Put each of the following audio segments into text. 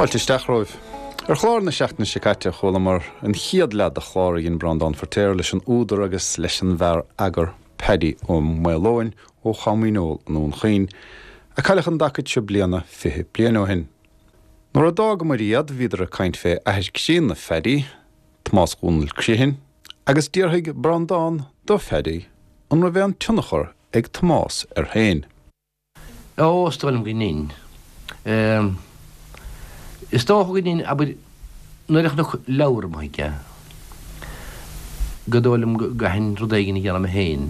Fáilte isteach romhaibh. Ar chlár na seachtaine seo caite chualamar an chéad leath de chlár a dhein Breandán Feirtéar leis an údar agus leis an bhfear eagair Paddy Ó Maoileoin ó Chom Dhíneol i nDún Chaoin, a cailleadh an dtacaid seo bliana 20 bliain ó shin. Nuair a d'fhágamair iad bhíodar ag caint fé athair críonna Phaddy, Tomás Dhónaill Criomhthain, agus d'fhiafraigh Breandán do Phaddy an raibh aon tionchar ag Tomás air féin. Ó, is dóigh liom go ndein. Is dócha go ndein, abair, nuair a chonac leabhar amuigh aige, go dóigh liom go gcaithfinn rud éigin a dhéanamh mé féin.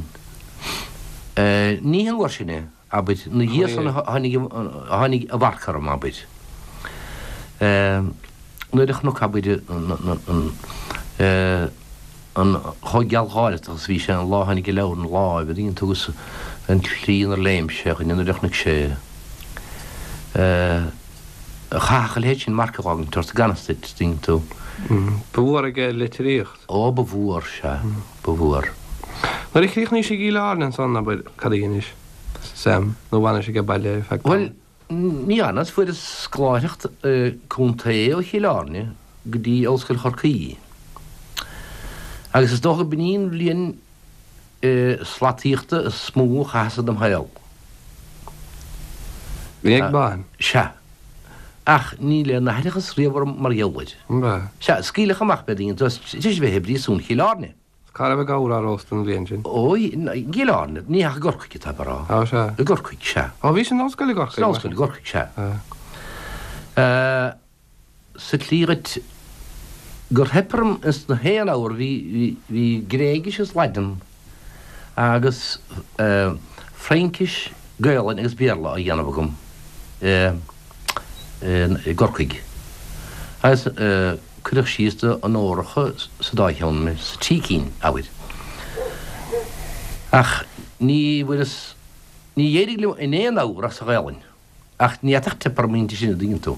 Ní an uair sin é, abair, ina dhiaidh san a tháinig, a tháinig a mharc orm, abair. Nuair a chonac, abair, an, an chomh gealgháireach agus a bhí sé an lá a tháinig an leabhar ina láimh, an dtuigeann tú, agus an tslí inar léim sé a dhuine nuair a chonaic sé é. Chaithfeadh a leithéid sin marc a dh'fhágaint ort gan fhios duit, an dtuigeann tú. Ba mhór aige litríocht. Ó, ba mhór, sea, ba mhór. Nuair a chríochnaís i gCill Airne ansan, abair, cad a dheinis, Sam, nó bhfanais aige baile ar feadh tamaill? Bhuel, ní fhanas, fuaireas scoláireacht contae ó Chill Airne go dtí Ollscoil Chorcaí. Agus is dócha b'in í an bhliain slataíochta is mó a chaitheas i dem shaol. Bhí ag bain. Sea. Ach níl aon aithreachas riamh orm mar gheall air. Sea, scaoileadh amach mé, an dtuigeann tú, tar éis a bheith i bpríosún Chill Airne. Cá raibh an gabhar á róstadh an bhliain sin? Ó, i gCill Airne, ní ach i gCorcaigh atá mé a rá. Á, sea. I gCorcaigh, sea. Ó, bhís in ollscoil i gCorcaigh? San ollscoil i gCorcaigh, sea. Sa tslí dhuit gur theip orm ins na haon abhar, bhí, bhí, bhí Gréigis is Laidin agus Fraincis, Gaolainn agus Béarla á dhéanamh agam i gCorcaigh. Agus cuireadh síos do onóracha sa dá cheann mé, sa trí cinn, abair. Ach ní bhfuaireas, ní d'éirigh liom in aon abhar ach sa Ghaolainn. Ach ní fhéadfadh teip orm inti sin, an dtuigeann tú.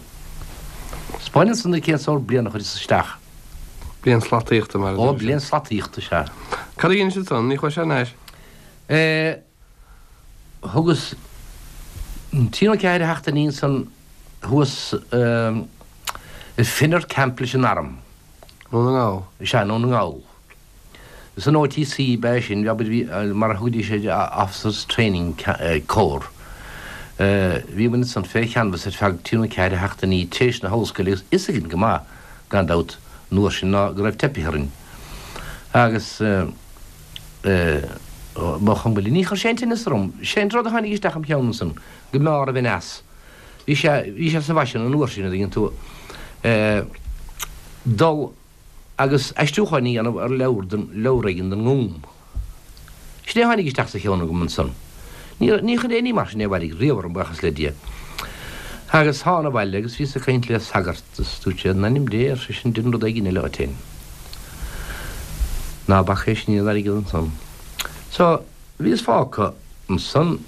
'Spáineann san duit cén sórt bliana a chuireas isteach. Bliain slataíochta, mar a Ó, bliain slataíochta, sea. Cad a dheinis ansan? Ní chuais thar n-ais? Eh, thugas trí nó ceathair sheachtainí ansan thuas i Finner Camp leis an arm. Ndún na nGall? Sea, i nDún na nGall. San OTC ba ea sin, abair, bhí, mar a thugaidís air, Officers Training Corps. Bhí muid ansan fé cheanbhas ar feadh trí nó ceathair sheachtainí tar éis na hollscoile agus fhios againn go maith, gan dabht, an uair sin ná go raibh teipithe orainn. Agus ba chuma linn. Ní chuir sé aon tinneas orm. Sé an rud a tháinig isteach im cheann ansan, go mb'fhearr a bheinn as. Bhí sé, bhí sé sa bhfaisean an uair sin, an dtuigeann tú, dul agus aistriúcháin a dhéanamh ar leabhar den, leabhar éigin den nGúm. Sin é a tháinig isteach sa cheann agam ansan. Ní, ní chuir aon ní mar sin aon mhairg riamh orm, buíochas le Dia. Agus thána abhaile agus bhíos ag caint le sagart is dúirt sé, In ainm Dé, ar seisean, dein rud éigin eile dhuit fhéin. Ná bac é sin an airgead ansan. So, bhíos fágtha ansan,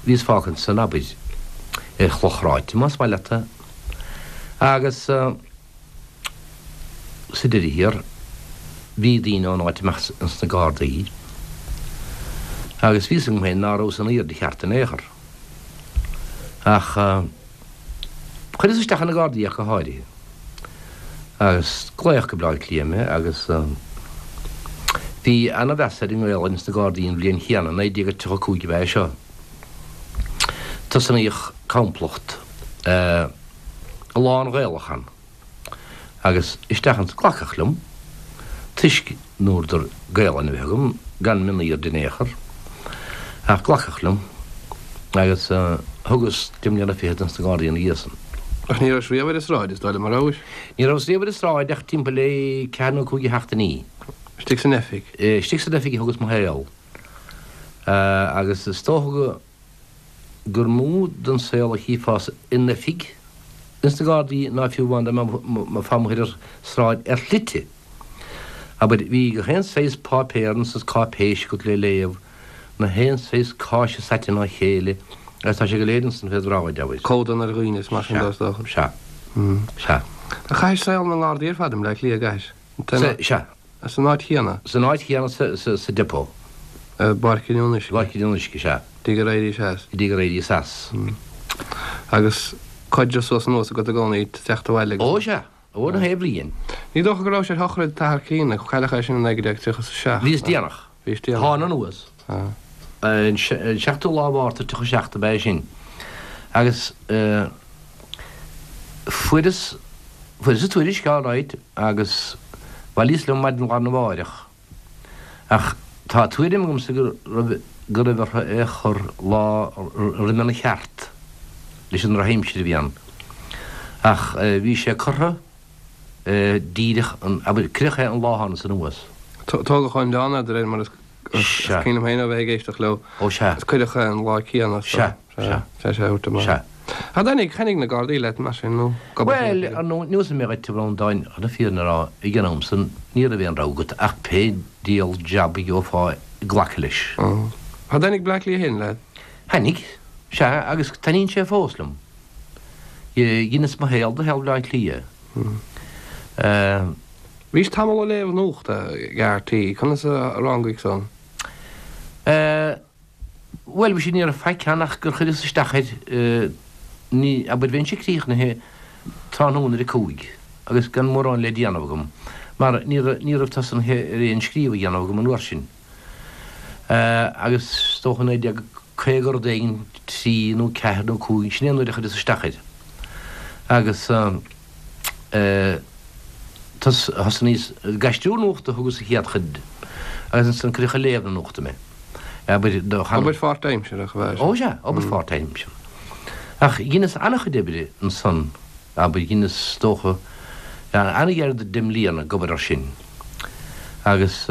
bhíos fágtha ansan, abair, ar chloch ráite, más maith leat é. Agus. Sa deireadh thiar, bhí daoine ón áit amach ins na Gardaí agus bhí fhios agam féin ná rabhas in aoirde cheart in aon chor. Ach chuireas isteach ar na Gardaí ach go háirithe. Agus glaodh go Bleá Cliath mé agus bhí ana-mheas ar an nGaelainn ins na Gardaí an bhliain chéanna, 1935 ab ea é seo. Tosnaíodh complacht. lán-Ghaelach ann agus isteach ansan glacadh liom toisc ndúradar Gaelainn a bheith agam, gan mionaoird in aon chor, ach glacadh liom agus thugas deich mbliana fichead ins na Gardaí ina dhiaidh san. Ach ní rabhais riamh ar an sráid, is dóigh liom, a rabhais? Ní rabhas riamh ar an sráid ach timpeall le ceathair nó cúig de sheachtainí. Istigh san oifig? Istigh san oifig a thugas mo shaol agus is dócha go. gur mó den saol a chífeá in oifig ins na Gardaí ná fiú amháin dá mbeifeá amuigh ar an sráid ar shlite. Abair, bhí gach aon saghas páipéar is cáipéis agat le léamh, na haon saghas cáise saite ina chéile agus tá sé go léir ansan féd bhráid, abair. Codanna ar dhaoine is mar sin de, is dócha. Sea. Sea. Ach chaithis saol na nGardaí ar fad i mBleá Cliath, an gcaithis? Sea. San áit chéanna? San áit chéanna sa depot. I bPáirc an Fhionnuisce? I bPáirc an Fhionnuisce, sea. Go dtí gur éiríos as? Go dtí gur éiríos as. Agus. Caidreamh suas anuas agat i gcónaí ag teacht abhaile agus. Ó sea, ó na haon bhliain. Ní dócha go raibh sé ar shochraid t'athar críonna, cailleadh é sin i 1937. Bhíos déanach. Bhís déanach. Thána anuas. An seachtú lá Mhárta 37 ab ea é sin. Agus fuaireas, fuaireas an tuairisc all right agus bhailíos liom maidin lá arna mháireach. Ach tá tuairim agamsa go raibh go raibh orthu é a chur lá roimhe an cheart leis an drochaimsir a bhí ann. Ach bhí sé curtha díreach an, abair, cuireadh é an lá a thánas anuas. Tógadh ón oileán é de réir mar is cuimhin liom féin ó bheith ag éisteacht leo. Ó sea. Is cuireadh é an lá céanna. Sea. Sea. Sea, sea, a thabhairt amach. Sea. Ach thaitnigh, thaitnigh na Gardaí leat, mar sin, nó Bhuel, ar ndóigh, neosfaidh mé dhuit, a Bhreandáin, chun na fírinne a rá, ag an am san, ní raibh aon rogha agat ach pé diabhal jab a gheofá glacadh leis. Ach thaitnigh Bleá Cliath féin leat? Thaitnigh, sea, agus taitníonn sé fós liom. Dheineas mo shaol de shaol Bhleá Cliath. Bhís tamall ag léamh nuachta ag RTÉ, conas a rangaigh san? Bhuel, bhí sé, ní raibh faic ann ach gur chuireas isteach air, ní, abair, bheinnse críochnaithe tráthnóna ar a cúig agus gan mórán le déanamh agam, mar ní raibh, ní raibh tosnaithe ar aon scríobh a dhéanamh agam an uair sin. Agus is dócha 1950 rud éigin, trí nó ceathair nó cúig, sin é an uair a chuireas isteach air. Agus thosnaíos ag aistriú nuachta a thugas an chéad chuid agus ansan cuireadh ag léamh na nuachta mé. Abair do chan. Obair pháirtaimseartha ab ea sin? Ó sea, obair pháirtaimseartha. Ach dheineas an-chuid oibre ansan, abair, dheineas is dócha an-ghar do deich mbliana ag obair air sin. Agus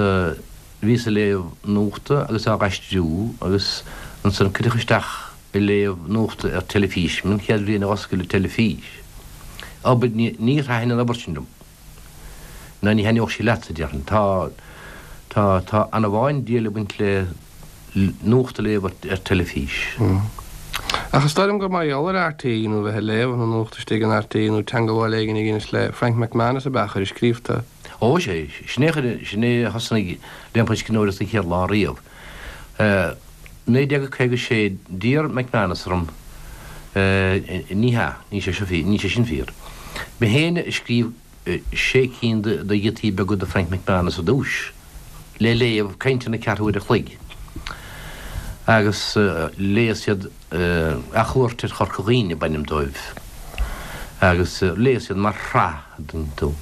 bhíos ag léamh nuachta agus á aistriú agus ansan cuireadh isteach ag léamh nuachta ar teilifís, an chéad bhliain a dh'oscail an teilifís. Obair, níor thaitin an obair sin liom. Ná ní thaitneodh sí leatsa, déarfainn. Tá, tá, tá ana-mhaith an diabhal ag baint le nuacht a léamh ar teilifís. Ach is dóigh liom gur mar gheall ar RTÉ nó bheith ag léamh na nuachta istigh in RTÉ nó teangabháil éigin a dheinis le Frank McManus ab ea a chuir ag scríobh tú. Ó, sea, sin é a chuir, sin é a thosnaigh liom an scríbhneoireacht an chéad lá riamh. 1956, d'iarr McManus orm, ní hea, níl sé seo fíor, níl sé sin fíor. Mé féin a scríobh sé cinn de ghiotaí beaga do Frank McManus ar dtúis, le léamh, cainteanna ceathrú uair a chloig, agus léas iad Athchuairt ar Chorca Dhuibhne ab ainm dóibh, agus léas iad mar shraith, an dtuigeann tú.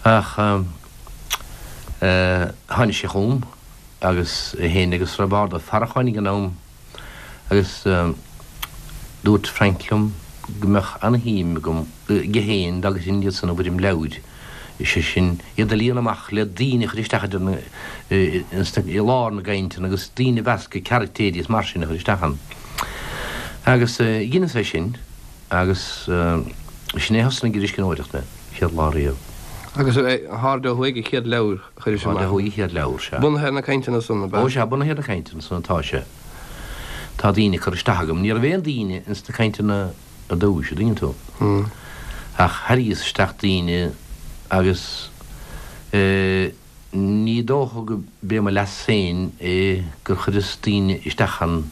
Ach tháinig sé chugam. agus é féin agus Roibeárd Ó Faracháin ag an am agus dúirt Frank liom go mbeadh ana-shuim agam, aige féin dá gcuirfinn iad san i bhfoirm leabhair, is é sin, iad a líonadh amach le daoine a chur isteach idir na, i lár na gcainteanna agus daoine a mheascadh, caractéirí is mar sin a chur isteach ann. Agus dheineas é sin agus sin é a thosnaigh ar an scríbhneoireacht mé, chéad lá riamh. Agus Na hAirde Ó Thuaidh an chéad leabhar? Chuiris amach. Ó thuaidh an chéad leabhar, sea. Bunaithe ar na cainteanna san, ab ea? Ó sea, bunaithe ar na cainteanna san atá sé. Tá daoine curtha isteach agam. Ní raibh aon daoine ins na cainteanna ar dtúis, a dtuigeann tú. Ach tharraingíos isteach daoine agus eh ní dócha go b'é mo leas féin é gur chuireas daoine isteach ann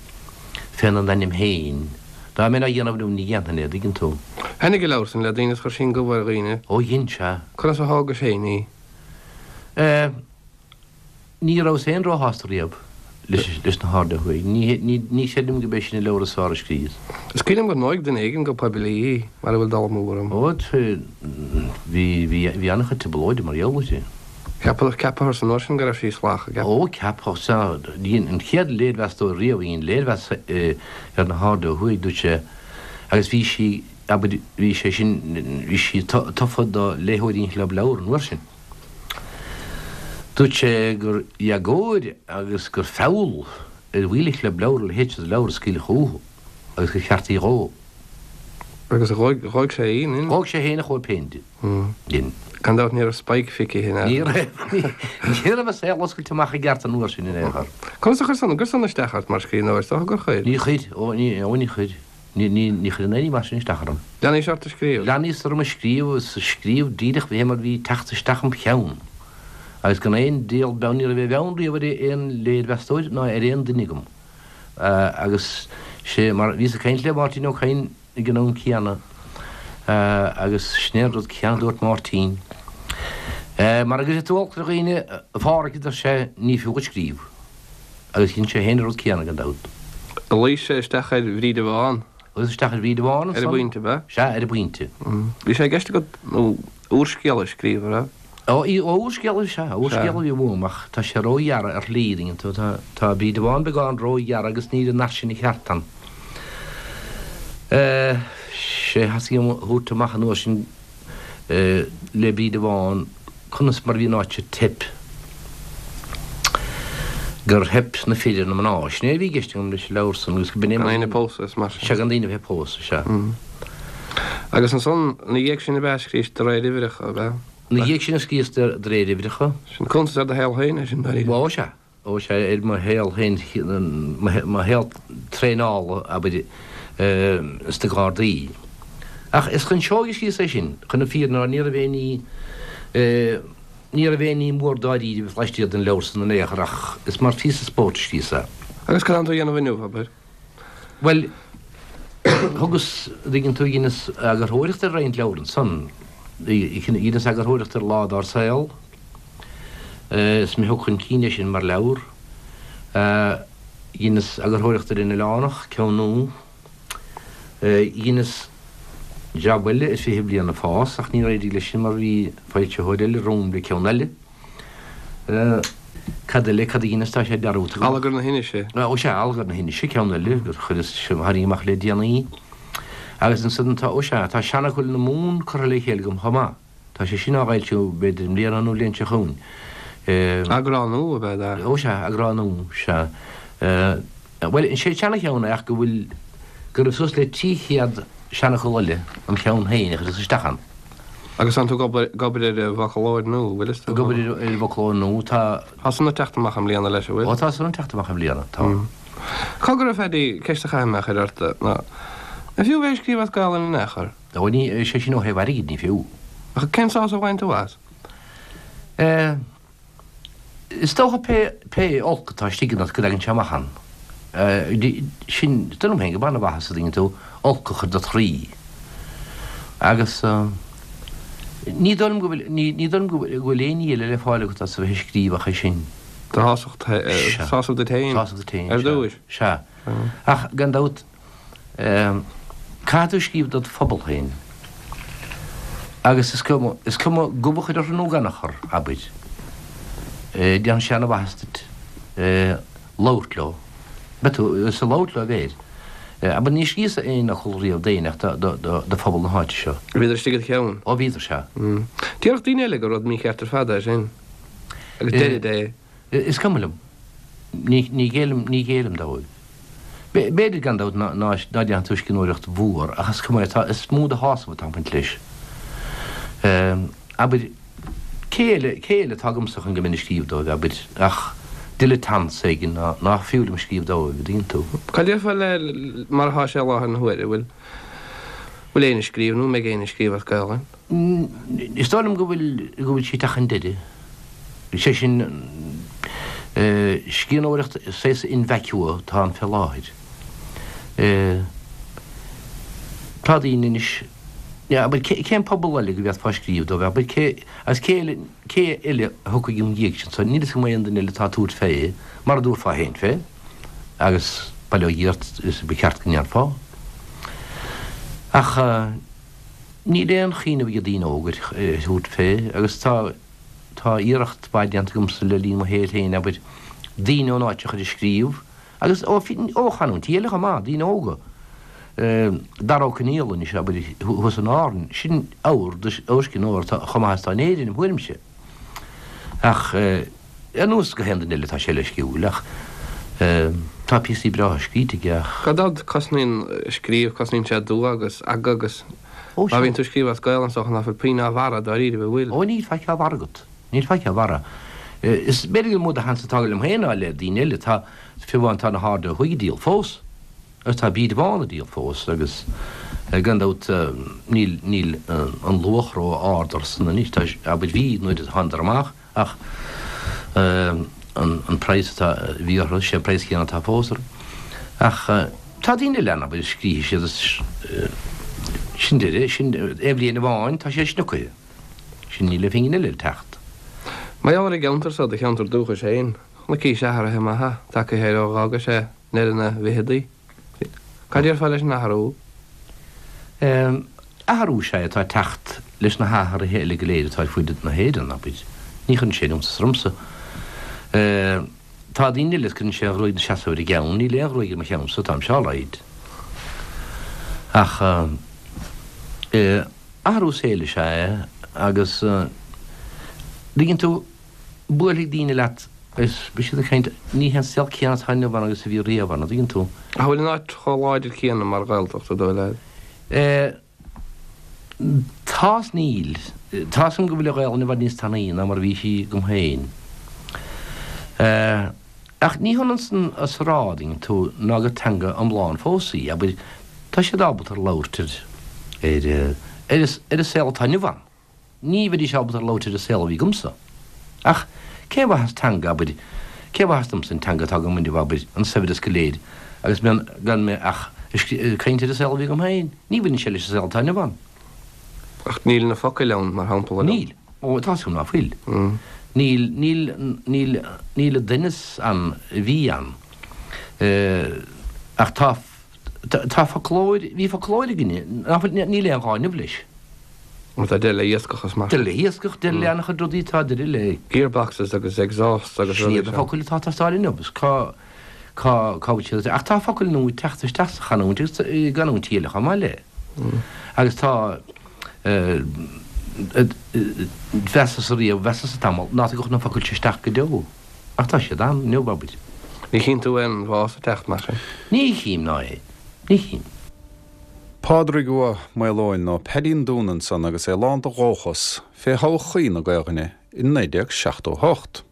féna n-ainm féin. Dá mbeinn á dhéanamh inniu ní dhéanfainn é, a dtuigeann tú. Thaitnigh an leabhar san le daoine is chuir sí an gomh ar dhaoine. Ó dhein, sea. Conas a thógais féin í? Eh, ní rabhas féin róshásta riamh leis na hAirde Ó Thuaidh. Ní, ní, ní chreidim gurb é sin an leabhar is fearr a scríos. Is cuimhin liom gur ndóigh duine éigin go poiblí í, mara bhfuil dul amú orm. Ó, bhí, bhí, bhí an-chuid trioblóide mar gheall uirthi. Ceapadh, ceapadh san uair sin go raibh sí salach, ceap. Ó, ceapadh, sea. Dhein an chéad léirmheastóir riamh a dhein léirmheas ar na hAirde Ó Thuaidh, dúirt sé, agus bhí sí, abair, bhí sé sin, bhí sí tofa do léitheoirí an Chlub Leabhar an uair sin. Dúirt sé gur éagóir agus gur feall ar bhaill an Chlub Leabhar a leithéid de leabhar a scaoileadh chucu agus gur cheart í a dhó. Agus dhóigh, dhóigh sé í, nin? Dhóigh sé féin a chóip féin di. Dhin. Gan dabht ní raibh Spike feicthe in Ní raibh, ní raibh a saol oscailte amach i gceart an uair sin in aon chor. Conas a chuir san, an gcuir san isteach ort mar scríbhneoir? Is dócha gur chuir. Ní chuir, ó ní, ó ní chuir. Ní, ní, ní chuireann aon ní mar sin isteach orm. Leanaís ort ag scríobh? Leanaíos orm ag scríobh is ag scríobh díreach fé mar bhí ag teacht isteach im cheann. Agus gan aon diabhal beann, ní raibh aon bheann riamh ar aon léirmheastóir ná ar aon duine agam. Agus sé mar, bhíos ag caint le Máirtín Ó Cadhain. ag an am céanna agus sin é an rud céanna a dúirt Máirtín. Mara gcuirfidh tú olc ar dhaoine, a Phádhraic, a deir sé, ní fiú dhuit scríobh. Agus dhein sé féin an rud céanna, gan dabht. Luigh sé isteach ar Bhríde Bhán. Luigh isteach ar Bhríde Bhán ansan. Ar an bpointe, ab ea? Sea, ar an bpointe. Bhí sé i gceist agat úrscéal a scríobh, an raibh? Ó, úrscéal, sea, úrscéal a bhí uaim ach tá sé róghearr ar shlí, an dtuigeann tú, tá, tá Bríde Bhán beagán róghearr agus níl an nath sin ceart ann. Sé thosaigh a thabhairt amach an uair sin le Bríde Bhán conas mar a bhí an áit ag teip, gur theip na fir ar na mná. Sin é a bhí i gceist agam leis an leabhar san agus go b'in é mar. Gan éinne ag pósadh is mar sin. Sea, gan daoine a bheith ag pósadh, sea. Agus ansan, ina dhiaidh sin ab ea a scríos de réir uimhreacha, ab ea? Ina dhiaidh sin a scríos de réir uimhreacha. Sin cuntas ar do shaol féin é sin, dáiríre. Ó, sea. Ó, sea, ar mo shaol féin, mo shaol traenála, abair, sna Gardaí. Ach is chun seoigh a scríos é sin, chun na fírinne a rá, ní raibh aon ní, ní raibh aon ní mór dáiríribh laistiar den leabhar san in aon chor ach is mar phíosa spóirt a scríos é. Agus cad tánn tú a dhéanamh inniu, abair? Bhuel, thugas, an dtuigeann tú, dheineas eagarthóireacht ar roinnt leabhar ansan. Dheineas eagarthóireacht ar Lá Dár Saol. Is mé a thug chun cinn é sin mar leabhar. Dheineas eagarthóireacht ar An Oileánach, ceann nua. Dheineas jab eile ar 20 Bliain ag Fás ach níor éirigh leis sin mar bhí foilsitheoir eile romham le ceann eile. Cad eile, cad a dheineas, tá sé dearmadta agam. Allagar na hInise. Ó sea, Allagar na hInise, ceann eile gur chuireas, a tháinig amach le déanaí. Agus ansan tá, ó sea, tá Seanfhocail na Mumhan curtha le chéile agam chomh maith. Tá sé sin á fhoilsiú b'fhéidir i mbliana nó an bhliain seo chugainn. Eagrán nua ab ea é? Ó sea, eagrán nua, sea. Bhuel, is é an seana-cheann é ach go bhfuil, go raibh suas le 300 seanfhocal eile im cheann féin a chuireas isteach ann. Agus tánn tú ag obair, ag obair ar an bhfoclóir nua, bhfuil fhios Ag obair ar an bhfoclóir nua, tá. Tá san ag teacht amach i mbliana leis, an bhfuil? Ó tá san ag teacht amach i mbliana, tá. Cogar a Phaddy, ceist a chaithfidh mé a chur ort, ná, an fiú bheith ag scríobh as Gaelainn in aon chor? Ó ní, sé sin ó thaobh airgid, ní fiú. Ach cén sásamh a bhain tú as? Eh. Is dócha pé, pé olc atá istigh ionat go dtagann sé amach ann. Sin, is dóigh liom féin gurb an-mhaitheas a dtuigeann tú, olc a chur dod chroí. Agus ní dóigh liom go bhfuil, ní, ní dóigh liom go bhfuil, go bhfuil aon ní eile le fáil agat as a bheith ag scríobh ach é sin. Do shásamh, sásamh duit féin. Sásamh duit féin, Ar dtúis. Sea. Ach gan dabht, Caithfidh tú scríobh dod phobal féin. Agus is cuma, is cuma gob a chur orthu nó gan a chur, abair. Déanfaidh sé ana-mhaitheas duit labhairt leo. Beidh tú, is ag labhairt leo a bheir. Abair, níor scríos aon fhocal riamh d'éinne ach do phobal na háite seo. Bhíodar istigh id cheann? Ó bhíodar, sea. Déarfadh daoine eile gur rud mícheart ar fad é sin. Agus deirid é. Is cuma liom. Ní, ní ghéillim, ní ghéillim dóibh. B'fhéidir, gan dabht, ná, ná déanfaidh tú scríbhneoireacht mhór, ach is cuma é, tá, is mó de shásamh atá ag baint leis. Abair, cé eile, cé eile atá agamsa chun go mbeinn ag scríobh dóibh, abair, ach dilettantes éigin ná, nach fiú liom scríobh dóibh, an dtuigeann tú? Cad déarfá le mar atá sé i láthair na huaire, bhfuil, bhfuil éinne ag scríobh nó an mbeidh éinne ag scríobh as Gaelainn? Is dóigh liom go bhfuil, go bhfuil sí ag teacht chun deiridh. Sé sin, scríbhneoireacht saghas in vacuo atá ann fé láthair. Tá daoine anois, abair, cén pobal eile go bhféadfá scríobh dóibh, abair, cé, agus cé eile, cé eile a thiocfaidh im dhiaidh sin, so níl fhios agam aon duine eile atá ag tabhairt fé, mar a dtabharfá féin fé, agus bail ó Dhia ort, is ba cheart go ndéanfá. Ach níl aon chuimhneamh ag daoine óga ar thabhairt fé, agus tá, Tá iarracht mhaith déanta agamsa le linn mo shaoil féin, abair, daoine ón áit a chur ag scríobh, agus ó chanúintí eile chomh maith, daoine óga. Dara Ó Conaola anois, abair, thuas in Árainn, sin ábhar d'úrscríbhneoir atá chomh maith is atá in Éirinn, im thuairimse. Ach ar nós gach aon duine eile tá sé leisciúil, ach tá píosaí breátha scríte aige ach. Gan dabht, cosnaíonn scríobh, cosnaíonn sé dua agus aga agus Ó, Má bhíonn tú ag scríobh as Gaelainn is dócha ná fuil puinn á bharra dáiríre, an bhfuil? Ó níl faic á bharra agat. Níl faic á bharra. Is b'fhéidir gur mó de sheans atá liom féin ná le daoine eile. Tá, fiú amháin tá Na hAirde Ó Thuaidh ag díol fós. Agus tá Bríde Bhán ag díol fós agus gan dabht níl, níl an luach ró-ard orthusan anois. Tá, abair bhí nuair a thánadar amach. Ach an praghas atá, a bhí orthu, sé an praghas céanna atá fós orthu. Ach Tá daoine eile ann, abair, a scríobhfaidh siad is sin deireadh, sin aon bhliain amháin, tá sé snioctha. Sin níl aon phingin eile le teacht. Mar gheall ar an gceantar so, do cheantar dúchais féin, chonaicís athruithe maithe tagtha air ó dh'fhágais é i ndeireadh na bhficheadaí. Cad déarfá leis an athrú? Athrú is ea é atá ag teacht leis na hathruithe eile go léir atá ar fuaid na hÉireann, abair. Ní chuireann sé iontas ormsa. Tá daoine eile is cuireann sé an ghruaig ina seasamh ar a gceann, níl aon ghruaig ar mo cheannsa, táimse alright. Ach athrú saoil is ea é agus tuigeann tú, buailfidh daoine leat agus beidh siad ag caint, ní hé an saol céanna atá inniu ann agus a bhí riamh ann, an dtuigeann tú? Ach an bhfuil an áit chomh láidir céanna mar Ghaeltacht, an dóigh leat? Tá is níl. Tá 'fhios agam go bhfuil an Ghaelainn i bhfad níos tanaí ná mar a bhí sí agam féin. Ach ní hionann san is a rá, an dtuigeann tú, ná gur teanga iomlán fós í. Abair, tá siad ábalta ar labhairt ar, ar, ar an saol atá inniu ann. Ní bheidís ábalta ar labhairt ar an saol a bhí agamsa. Ach cén mhaitheas teanga, abair, cén mhaitheas domsa an teanga atá agam inniu, abair, an saibhreas go léir, agus mé, gan mé ach ag caint ar an saol a bhí agam féin? Ní bhaineann sé leis an saol atá inniu ann. Ach níl na focail ann, mar shampla. Níl. Ó, tá 'fhios agam ná fuil. Níl, níl, níl, níl an doimhneas ann a bhí ann. Ach tá, tá foclóir, bhí foclóir againne, ná fuil, níl aon ghá inniu leis. Mar tá deireadh le hiascach is mar. Deireadh le hiascach, deireadh le an-chuid rudaí, tá deireadh le. Gearboxes agus exhausts agus rudaí. Sin iad na focail atá ag teastáil inniu agus cá, cá, cá bhfuil siad, ach tá focail nua ag teacht isteach sa chanúint agus i gcanúintí eile chomh maith le. Agus tá, mheasas riamh, mheasas tamall ná tagadh na focail seo isteach go deo. Ach tá siad ann inniu, abair. Ní chíonn tú aon bhás ag teacht mar sin? Ní chím ná é. Ní chím. Pádraig Ua Maoileoin nó Paddy an Dúna ansan agus é lán de dhóchas fé thodhchaí na Gaelainne i 1978.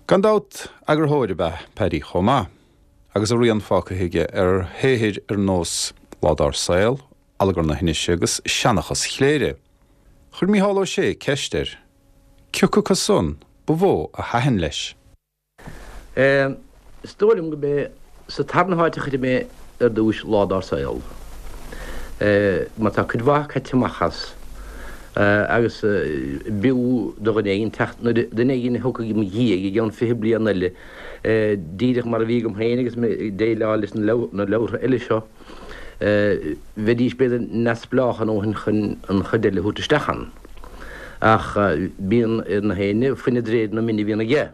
Gan dabht, eagarthóir ab ea Paddy chomh maith, agus a rian fágtha aige ar shaothair ar nós Lá Dár Saol, Allagar na hInise agus Seanchas Chléire. Chuir Mícheál Ó Sé ceist air cioca acu san ba mhó a thaitin leis. Is dóigh liom gurb é sa tarna háit a chuirfidh mé ar dtúis Lá Dár Saol, mar tá cuid mhaith caite amach as, agus b'fhiú do dhuine éigin teacht, nuair duine éigin a thiocfaidh i mo dhiaidh i gceann 20 bliain eile, díreach mar a bhí agam féin agus mé ag déileáil leis na leabhartha eile seo, bheidís b'fhéidir neamhspleách a ndóthain chun an chuid eile a thabhairt isteach ann. Ach bíonn ar na héinne fuineadh d'réir na mine a bhíonn aige.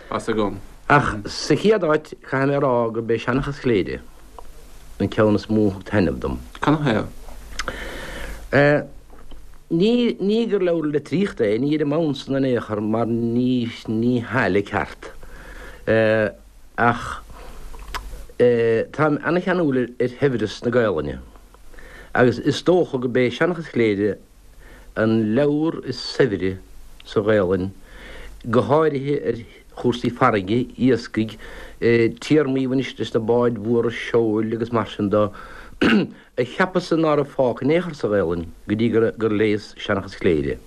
Tá's agam. Ach sa chéad áit, caithfidh mé a rá gurb é Seanchas Chléire an ceann is mó a thug taitneamh dom. Canathaobh? Ní, ní gur leabhar litríochta é, ní ar an mbonn san in aon chor mar ní, ní hea le ceart. Ach táim ana-cheanúil ar shaibhreas na Gaelainne agus is dócha gurb é Seanchas Chléire an leabhar is saibhre sa Ghaelainn, go háirithe ar chúrsaí farraige, iascaigh, téarmaí a bhain leis na báid mhóra seoil agus mar sin de, a cheapas-sa ná raibh fágtha in aon chor sa Ghaelainn go dtí gur léas Seanchas Chléire.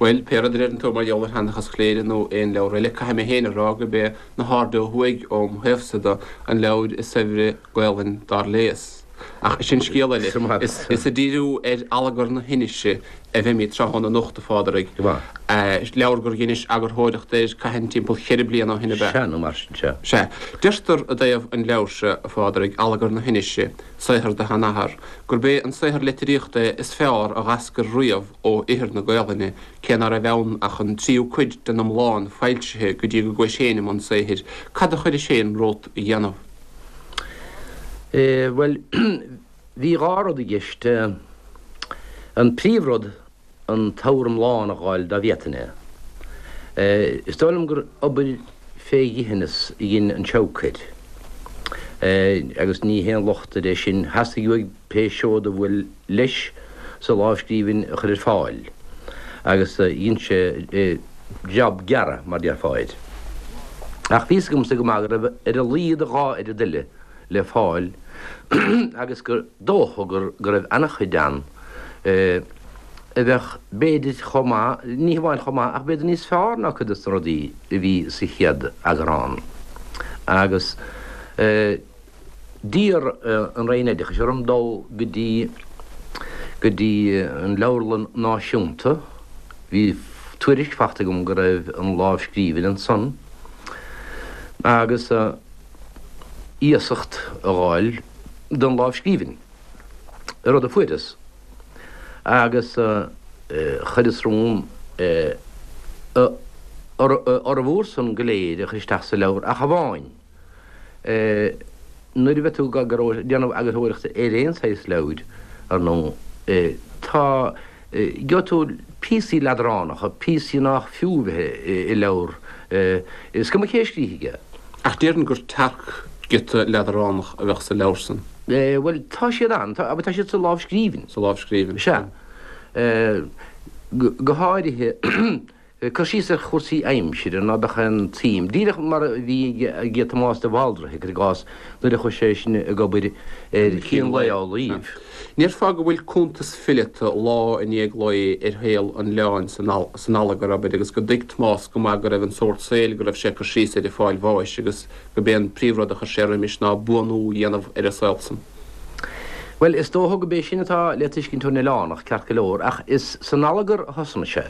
Bhuel, pé rud a deireann tú mar gheall ar Sheanchas Chléire nó aon leabhar eile, caithfidh mé féin a rá gurb é Na hAirde Ó Thuaidh, óm thaobhsa de, an leabhar is saibhre Gaelainn dár léas. Ach sin scéal eile. Is ag díriú ar Allagar na hInise a bheimid tráthnóna anocht, a Phádraig. Leabhar gur dheinis eagarthóireacht air cathain timpeall cheithre bliana ó shin, ab ea? Sea, nó mar sin, sea. Sea. Deirtear i dtaobh an leabhair seo, a Phádraig, Allagar na hInise, saothar do sheanathar, gurb é an saothar litríochta é is fearr a dh'eascair riamh ó ithir na Gaelainne, cé ná raibh ann ach an tríú cuid den iomlán foilsithe go dtí go gcuais féin i mbun saothair. Cad a chuiris féin romhat a dhéanamh? Bhuel, bhí dhá rud i gceist. An príomhrud, an t-abhar iomlán a dh'fháil dá bhféadfainn é. Is dóigh liom gur obair fé dhithineas a dhein an Seabhac air. Agus ní haon locht air é sin, theastaigh uaidh pé seod a bhuail leis sa lámhscríbhinn a chur ar fáil, agus dhein sé jab gearra, mar déarfá air. Ach bhí fhios agamsa go maith go raibh ar a laghad a dhá oiread eile le fáil agus gur dócha go raibh an-chuid ann a bheadh b'fhéidir chomh maith, ní hamháin chomh maith ach b'fhéidir níos fearr ná cuid des na rudaí a bhí sa chéad eagrán. Agus. D'iarr an Roinn Oideachais orm dul go dtí go dtí an Leabharlann Náisiúnta. Bhí tuairisc fachta agam go raibh an lámhscríbhinn ansan agus iasacht a dh'fháil don lámhscríbhinn, rud a fuaireas, agus chuireas romham a fhormhór san go léir a chur isteach sa leabhar ach amháin. Nuair a bheidh tú ag déanamh eagarthóireachta ar aon saghas leabhair, ar ndóigh, tá, gheobhaidh tú píosaí leadránacha, píosaí nách fiú bheith i leabhar, is cuma cé a scríobh é. Ach déarfainn gur tearc-ghiota leadránach a bheadh sa leabhar san. Bhuel, tá siad ann, tá, tá siad sa lámhscríbhinn. Sa lámhscríbhinn. Sea. Go háirithe. Cur síos ar chúrsaí aimsire ná beadh aon tsuim, díreach mar a bhí ag Tomás de Bhaldraithe, cuir i gcás, nuair a chuaigh sé sin ag obair ar Chín Lae Amhlaoibh. Ndéarfá go bhfuil cuntas fileata lá i ndiaidh lae ar shaol an oileáin san Allagar, abair, agus go dtuig Tomás go maith go raibh an sórt saoil go raibh sé ag cur síos air ag fáil bháis agus go b'é an príomhrud a chuir sé roimis ná buanú a dhéanamh ar an saol san. Bhuel, is dócha go b'é sin atá le tuiscint ón Oileánach, ceart go leor, ach is san Allagar a thosnaigh sé.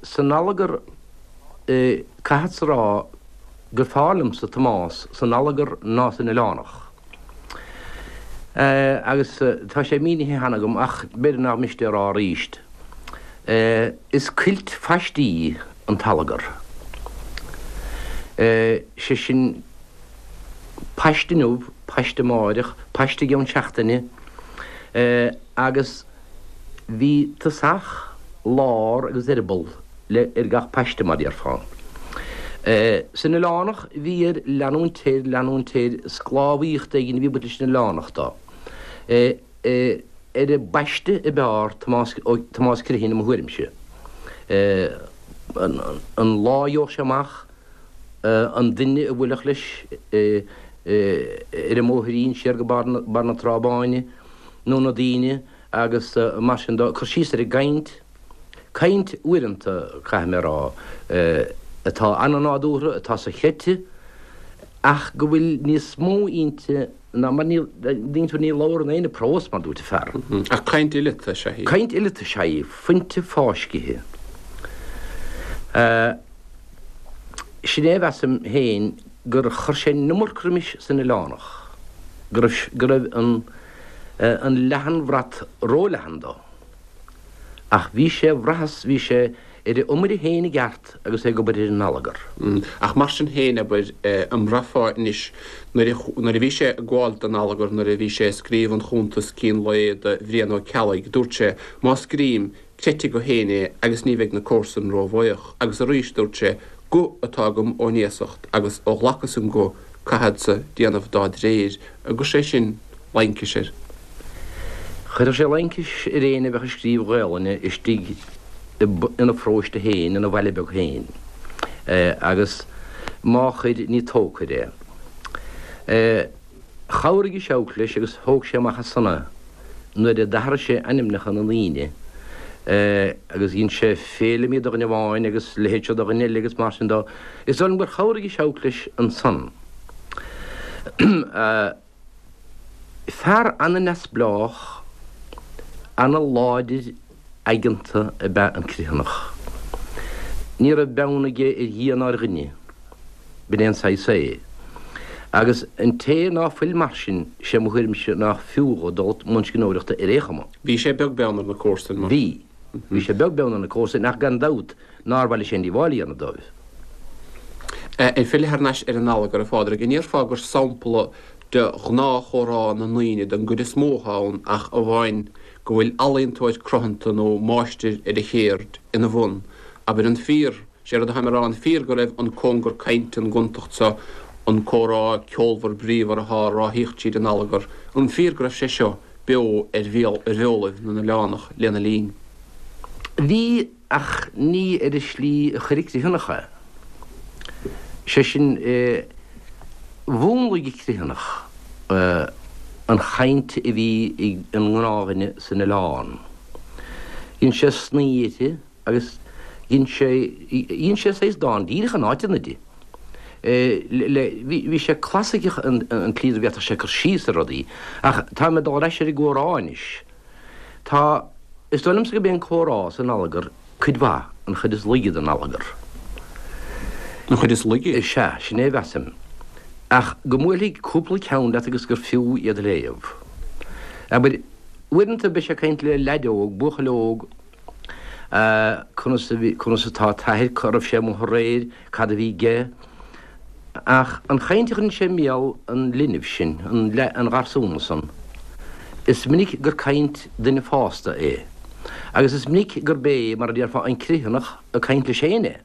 San Allagar, caithfeadsa a rá gur fearr liomsa Tomás san Allagar ná san Oileánach. Agus tá sé mínithe cheana agam, ach b'fhéidir nach miste a rá arís, is cuilt phaistí an tAllagar. Sé sin, paiste inniu, paiste amáireach, paiste i gceann seachtaine, agus bhí tosach, lár agus eireaball le ar gach paiste, mar déarfá. San Oileánach bhí air leanúint air, leanúint air, sclábhaíocht éigin a bhí ag baint leis an Oileánach dó. Ar an bpaiste ab fhearr Tomás, Tomás Criomhthain i mo thuairimse. An lá a gheobhadh sé amach an duine a bhuailfeadh leis ar an mbóithrín siar go barr na Trá Báine nó na daoine agus mar sin dó, cur síos ar an gcaint, caint uaireanta, caithfidh mé a rá, atá an-nádúrtha, atá sochreidte ach go bhfuil níos mó inti ná mar ní, ní labhrann éinne prós mar dúirt an fear. Ach caint fhileata is ea í. Caint fhileata is ea í, fuinte fáiscithe. Sin é a mheasaim féin gur chuir sé an iomarca roimis san Oileánach, go raibh, go raibh an, an leathanbhrat róleathan dó. Ach bhí sé, bhraitheas, bhí sé ar a iomaire féin i gceart agus é ag obair ar an Allagar. Ach mar sin féin, abair, an mbraithfeá anois, nuair a, nuair a bhí sé ag gabháil don Allagar, nuair a bhí sé ag scríobh an chuntas Cín Lae do Bhrian Ó Ceallaigh, dúirt sé, má scrím, Creidfidh go féin é agus ní bheidh na comharsain ró-bhuíoch. Agus arís dúirt sé, Guth atá agam ón iasacht agus ó ghlacas an guth caithfeadsa déanamh dá dréir. An gcuir sé sin laincis air? Chuirfeadh sé laincis ar éinne a bheadh ag scríobh Gaolainne istigh ina pharóiste féin, ina bhaile beag féin. Agus má chuir, ní tógtha air é. Chabhraigh an Seabhac leis agus thóg sé amach as san é nuair a d'athraigh sé ainmneacha na ndaoine agus dhein sé Féilimí de dhuine amháin agus leithéid seo de dhuine eile agus mar sin dó. Is dóigh liom gur chabhraigh an Seabhac leis ansan. Fear ana-neamhspleách, ana-láidir aigeanta ab ea an Criomhthanach. Ní raibh beann aige ar Dhia ná ar dhuine. B'in é an saghas é. Agus an té ná fuil mar sin, sé mo thuairimse nách fiú dhó dul i mbun scríbhneoireachta ar aon chuma. Bhí sé beag beann ar na comharsain, mar. Bhí. Bhí sé beag beann ar na comharsain ach gan dabht nár mhaith leis aon díobháil a dhéanamh dóibh. Ag filleadh thar n-ais ar an Allagar, a Phádraig, an ndéarfá gur sampla de ghnáthchomhrá na ndaoine den gcuid is mó atá ann ach amháin go bhfuil ealaíontóir cruthanta nó máistir ar a chéird ina bhun, abair, an fíor, sé rud atáim a rá, an fíor go raibh an cóngar cainte, an gontacht seo, an comhrá ceolmhar bríomhar atá á ráthaíocht tríd an allagar, an fíor go raibh sé seo beo ar bheolaibh na n-oileánach lena linn? Bhí, ach ní ar an slí a chuir an Criomhthanach é. Sé sin, mhúnlaigh an Criomhthanach an chaint a bhí ag an ngnáthdhuine san oileán. Dhein sé snoí uirthi agus dhein sé, dhein sé saghas dán díreach in áiteanna di. Le, bhí sé clasaiceach an tslí a bhféadfadh sé cur síos ar rudaí. Ach táim ag dul ar ais ar an gcomhrá anois. Tá, is dóigh liomsa gurb é an comhrá san Allagar cuid mhaith, an chuid is laige den Allagar. An chuid is laige? Is ea, sin é a mheasaim. Ach go mbuailfidh cúpla ceann leat agus gur fiú iad a léamh. Abair, uaireanta beidh sé ag caint le leaid óg, buachaill óg, conas a bhí, conas atá t'athair, cá raibh sé amuigh aréir, cad a bhí aige. Ach an chaint a chuireann sé i mbéal an linbh sin, an gharsúna san, is minic gur caint duine fásta é. Agus is minic gurb é, mar a déarfá, an Criomhthanach ag caint leis féin é.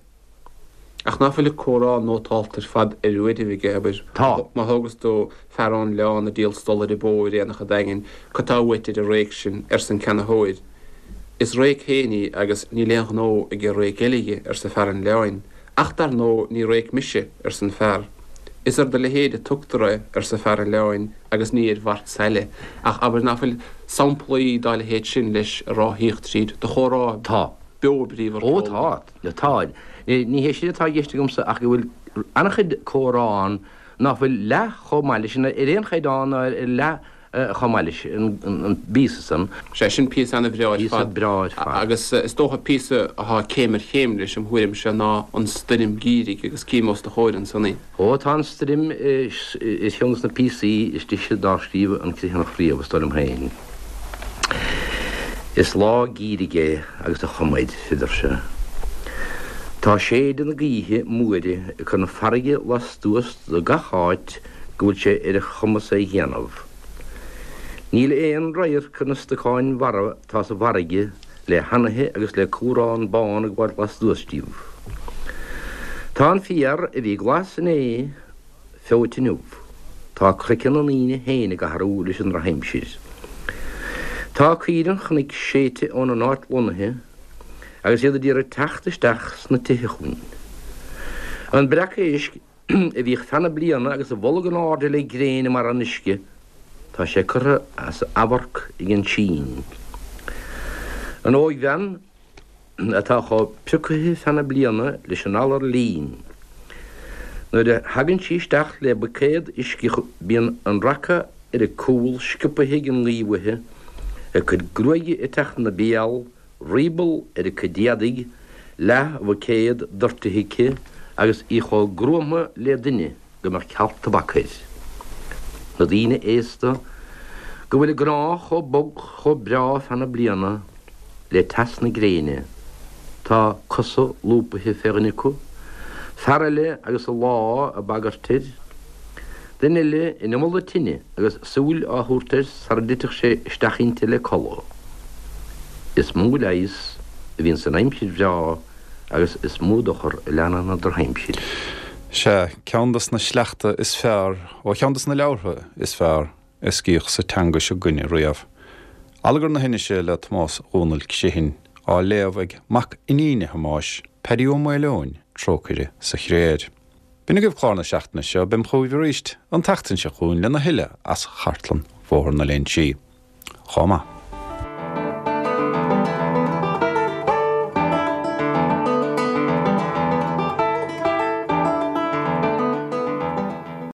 Ach ná fuil a comhrá nótálta ar fad ar uairibh aige, abair. Tá. Má thógas tú fear ón oileán ag díol stolaire bó ar aonach an Daingin, cad tá uait ar an réic sin, arsa an ceannaitheoir. Is réic féin í agus níl aon ghnó ag réic eile dhi, arsa fear an oileáin. Ach dar ndóigh ní réic mise, arsa an fear. Is ar do leithéid a tugtar é, arsa fear an oileáin, agus ní ar mhart saile. Ach abair ná fuil samplaí dá leithéid sin leis ag ráthaíocht tríd do chomhrá Tá. beo bríomhar Ó tá. Tá. Ní hé sin atá i gceist agamsa ach go bhfuil an-chuid comhrá ann ná fuil leath chomh maith leis, ar aon chaighdeán ná ar leath chomh maith leis an bpíosa san. Sea, sin píosa an-bhreá ar fad. Píosa breá ar fad. Agus is dócha píosa atá céim ar chéim leis, im thuairimse, ná an stoirm gheimhridh agus cím os do chomhair ansan í. Ó, tá an stoirm ar cheann de na píosaí is deise dár scríobh an Criomhthanach riamh, is dóigh liom féin. Is lá geimhridh é agus a chuma air, a deir sé. Tá séideadh na gaoithe móire ag cur na farraige lastuas de gach áit go bhfuil sé ar a chumas é dhéanamh. Níl aon radharc ar na stocáin mharbha atá sa bhfarraige le hanaithe agus le cumhrán bán ag gabháil lastuas díobh. Tá an féar a bhí glas inné feoite inniu. Tá craiceann na ndaoine féin ag athrú leis an drochaimsir. Tá caoire an chnoic séidte óna n-áit lonnaithe agus iad a d'iarraidh teacht isteach sna tithe chugainn. An breac éisc a bhíodh feadh na bliana agus a bholg in airde le gréin i mbarra an uisce, tá sé curtha as amharc ag an sín. An óigbhean atá chomh priocaithe feadh na bliana leis an alar lín, nuair a thagann sí isteach le buicéad uisce bíonn an raca ar a cúl sciobtha ag an ngaoth uaithi, a cuid gruaige ag teacht ina béal, rioball ar a cuid éadaigh, leath-bhuicéad doirtithe aici agus í chomh gruama le duine go mbeadh cealt tobac air. Na daoine aosta go bhfuil a gcnámha chomh bog chomh breá feadh na bliana le teas na gréine, tá cosa lúbaithe fé dhuine acu, fear eile agus a lámh ag bagairt air, duine eile in iomall na tine agus súil á thabhairt air sara dtitfeadh sé isteach inti le codladh. Is mó leigheas a bhíonn san aimsir bhreá agus is mó dochar a leanann an drochaimsir. Sea, ceann dos na sleachta is fearr ó cheann dos na leabhartha is fearr a scríodh sa teanga seo 'gainne riamh. Allagar na hAinnise le Tomás Dhónaill Criomhthain, á léamh ag mac iníne Thomáis, Paddy Ó Maoileoin, trócaire sa chré air. B'in agaibh clár na seachtaine seo, beam chugaibh arís an tseachtain seo chugainn lena thuilleadh as chartlann Bhóthar na Léinsí. Chomh maith.